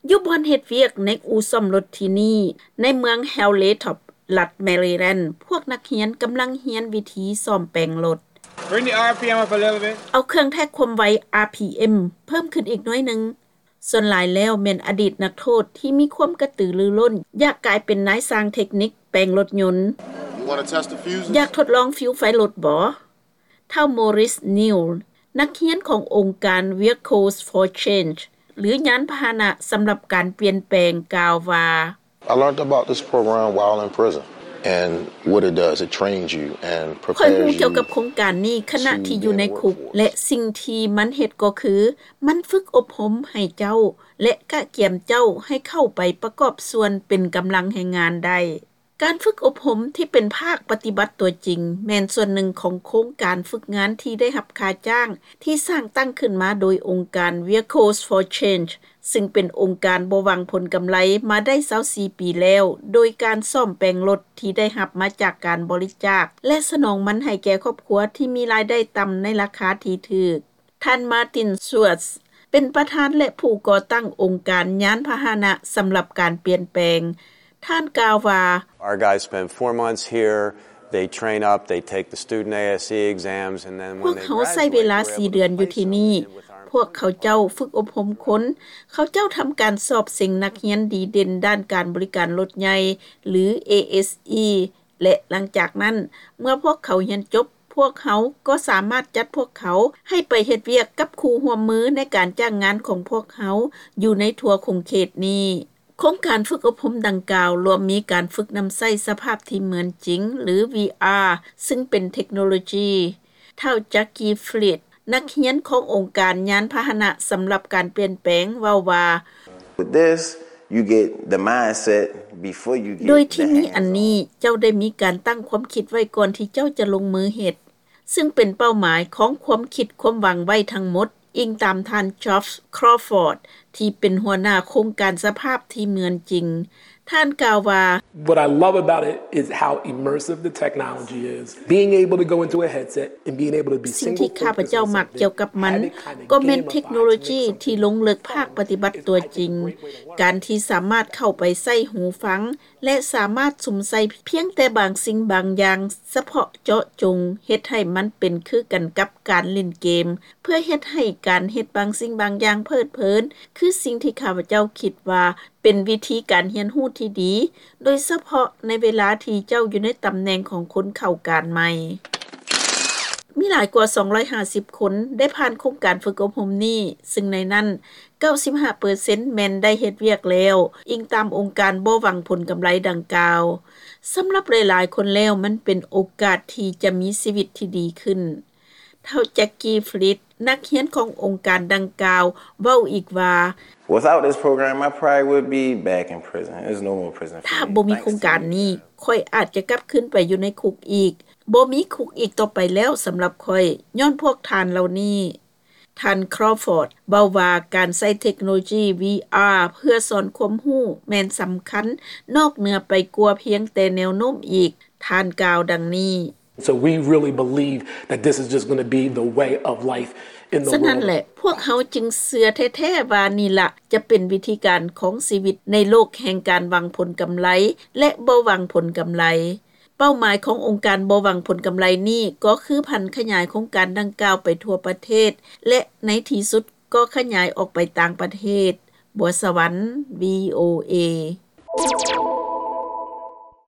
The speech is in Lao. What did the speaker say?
ຢູ່ບ່ອນເຮັດວຽກໃນອູ່ສ້ອມລົດທີ່ນີ້ ໃນເມືອງ Hilltop ລັດ Maryland ພວກນັກຮຽນກຳລັງຮຽນວິທີສ້ອມແປງລົດ. Bring the R P M up a little bit. ເອົາເຄື່ອງແທກຄວາມໄວ R P M ເພີ່ມຂຶ້ນອີກໜ້ອຍໜຶ່ງ. ສ່ວນຫຼາຍແລ້ວແມ່ນອະດີດນັກໂທດທີ່ມີຄວາມກະຕືລືລົ້ນ ຢາກກາຍເປັນນາຍຊ່າງເທັກນິກແປງລົດຍົນ. You wanna test the fuses? ຢາກທົດລອງຟິວໄຟລົດບໍ? ທ້າວ Maurice Neal ນັກຮຽນຂອງອົງການ Vehicles for Change ຫຼື ຍານພາຫະນະສຳລັບການປ່ຽນແປງ ກ່າວວ່າ, I learned about this program while in prison and what it does, it trains you and prepares you. ຂ້ອຍຮູ້ກ່ຽວກັບໂຄງການນີ້ຂະນະທີ່ຢູ່ໃນຄຸກ ແລະ ສິ່ງທີ່ມັນເຮັດກໍຄື ມັນຝຶກອົບຮົມໃຫ້ເຈົ້າ ແລະ ກະກຽມເຈົ້າໃຫ້ເຂົ້າໄປປະກອບສ່ວນເປັນກຳລັງແຮງງານໄດ້. ການຝຶກອົບຮົມທີ່ເປັນພາກປະຕິບັດຕົວຈິງ ແມ່ນສ່ວນໜຶ່ງຂອງໂຄງການຝຶກງານທີ່ໄດ້ຮັບຄ່າຈ້າງ ທີ່ສ້າງຕັ້ງຂຶ້ນມາໂດຍອົງການ Vehicles for Change ຊຶ່ງເປັນອົງການບໍ່ຫວັງຜົນກຳໄລມາໄດ້ຊາວສີ່ປີແລ້ວ, ໂດຍການສ້ອມແປງລົດທີ່ໄດ້ຮັບມາຈາກການບໍລິຈາກ ແລະ ສະໜອງມັນໃຫ້ແກ່ຄອບຄົວທີ່ມີລາຍໄດ້ຕ່ຳໃນລາຄາທີ່ຖືກ. ທ່ານ Martin Schwartz ເປັນປະທານ ແລະ ຜູ້ກໍ່ຕັ້ງອົງການຍານພາຫະນະສຳລັບການປ່ຽນແປງ. ທ່ານກ່າວວ່າ, Our guys spend four months here, they train up, they take the student A S E exams, and then ພວກເຮົາໃຊ້ເວລາສີ່ເດືອນຢູ່ທີ່ນີ້. ພວກເຂົາເຈົ້າຝຶກອົບຮົມຄົນ, ເຂົາເຈົ້າທຳການສອບເສັງນັກຮຽນດີເດັ່ນດ້ານການບໍລິການລົດໃຫຍ່ ຫຼື ASE ແລະ ຫຼັງຈາກນັ້ນ ເມື່ອພວກເຂົາຮຽນຈົບ, ພວກເຮົາກໍສາມາດຈັດພວກເຂົາໃຫ້ໄປເຮັດວຽກກັບຄູ່ຮ່ວມມືໃນການຈ້າງງານຂອງພວກເຮົາຢູ່ໃນທົ່ວຂົງເຂດນີ້. ໂຄງການຝຶກອົບຮົມດັ່ງກ່າວລວມມີການຝຶກນຳໃຊ້ສະພາບທີ່ເໝືອນຈິງ ຫຼື VR ຊຶ່ງເປັນເທັກໂນໂລຢີ. ທ້າວ Jackie Fleet ນັກຮຽນຂອງອົງການຍານພາຫະນະສຳລັບການປ່ຽນແປງ ເວົ້າວ່າ, With this, you get the mindset before you get the hands on. ໂດຍທີ່ມີອັນນີ້ ເຈົ້າໄດ້ມີການຕັ້ງຄວາມຄິດໄວ້ກ່ອນທີ່ເຈົ້າຈະລົງມືເຮັດ, ຊຶ່ງເປັນເປົ້າໝາຍຂອງຄວາມຄິດຄວາມຫວັງໄວ້ທັງໝົດ, ອີງຕາມທ່ານ Geoff Crawford ທີ່ເປັນຫົວໜ້າໂຄງການສະພາບທີ່ເໝືອນຈິງ. ທ່ານກ່າວວ່າ, What I love about it is how immersive the technology is. Being able to go into a headset and being able to be single focus on something. ສິ່ງທີ່ຂ້າພະເຈົ້າມັກກ່ຽວກັບມັນ ກໍແມ່ນເທັກໂນໂລຢີທີ່ລົງເລິກພາກປະຕິບັດຕົວຈິງ. ການທີ່ສາມາດເຂົ້າໄປໃສ່ຫູຟັງ ແລະ ສາມາດສຸມໃສ່ພຽງແຕ່ບາງສິ່ງບາງຢ່າງສະເພາະເຈາະຈົງ, ເຮັດໃຫ້ມັນເປັນຄືກັນກັບການຫຼິ້ນເກມ, ເພື່ອເຮັດໃຫ້ການເຮັດບາງສິ່ງບາງຢ່າງເພີດເພີນ, ຄືສິ່ງທີ່ຂ້າພະເຈົ້າຄິດວ່າ ເປັນວິທີການຮຽນຮູ້ທີ່ດີ, ໂດຍສະເພາະໃນເວລາທີ່ເຈົ້າຢູ່ໃນຕຳແໜ່ງຂອງຄົນເຂົ້າການໃໝ່. ມີຫຼາຍກວ່າສອງຮ້ອຍຫ້າສິບຄົນໄດ້ຜ່ານໂຄງການຝຶກອົບຮົມນີ້, ຊຶ່ງໃນນັ້ນ ເກົ້າສິບຫ້າເປີເຊັນແມ່ນໄດ້ເຮັດວຽກແລ້ວ, ອີງຕາມອົງການບໍ່ຫວັງຜົນກຳໄລດັ່ງກ່າວ. ສຳລັບຫຼາຍໆຄົນແລ້ວ, ມັນເປັນໂອກາດທີ່ຈະມີຊີວິດທີ່ດີຂຶ້ນ. ທ້າວ Jackie Fleet ນັກຮຽນຂອງອົງການດັ່ງກ່າວ ເວົ້າອີກວ່າ, Without this program, I probably would be back in prison. There's no more prison for me. ຖ້າບໍ່ມີໂຄງການນີ້, ຂ້ອຍອາດຈະກັບຄືນໄປຢູ່ໃນຄຸກອີກ. ບໍ່ມີຄຸກອີກຕໍ່ໄປແລ້ວສຳລັບຂ້ອຍ, ຍ້ອນພວກທ່ານເຫຼົ່ານີ້. ທ່ານ Crawford ເວົ້າວ່າ ການໃຊ້ເທັກໂນໂລຢີ VR ເພື່ອສອນຄວາມຮູ້ແມ່ນສຳຄັນນອກເໜືອໄປກວ່າພຽງແຕ່ແນວໂນ້ມອີກ. ທ່ານກ່າວດັ່ງນີ້. So we really believe that this is just gonna be the way of life in the world of. ສະນັ້ນແຫຼະ, ພວກເຮົາຈຶ່ງເຊື່ອແທ້ໆວ່ານີ້ລະຈະເປັນວິທີການຂອງຊີວິດໃນໂລກແຫ່ງການຫວັງຜົນກຳໄລ ແລະ ບໍ່ຫວັງຜົນກຳໄລ. ເປົ້າໝາຍຂອງອົງການບໍ່ຫວັງຜົນກຳໄລນີ້ ກໍຄືຜັນຂະຫຍາຍໂຄງການດັ່ງກ່າວໄປທົ່ວປະເທດ ແລະ ໃນທີ່ສຸດກໍຂະຫຍາຍອອກໄປຕ່າງປະເທດ. ບົວສະຫວັນ ວີໂອເອ.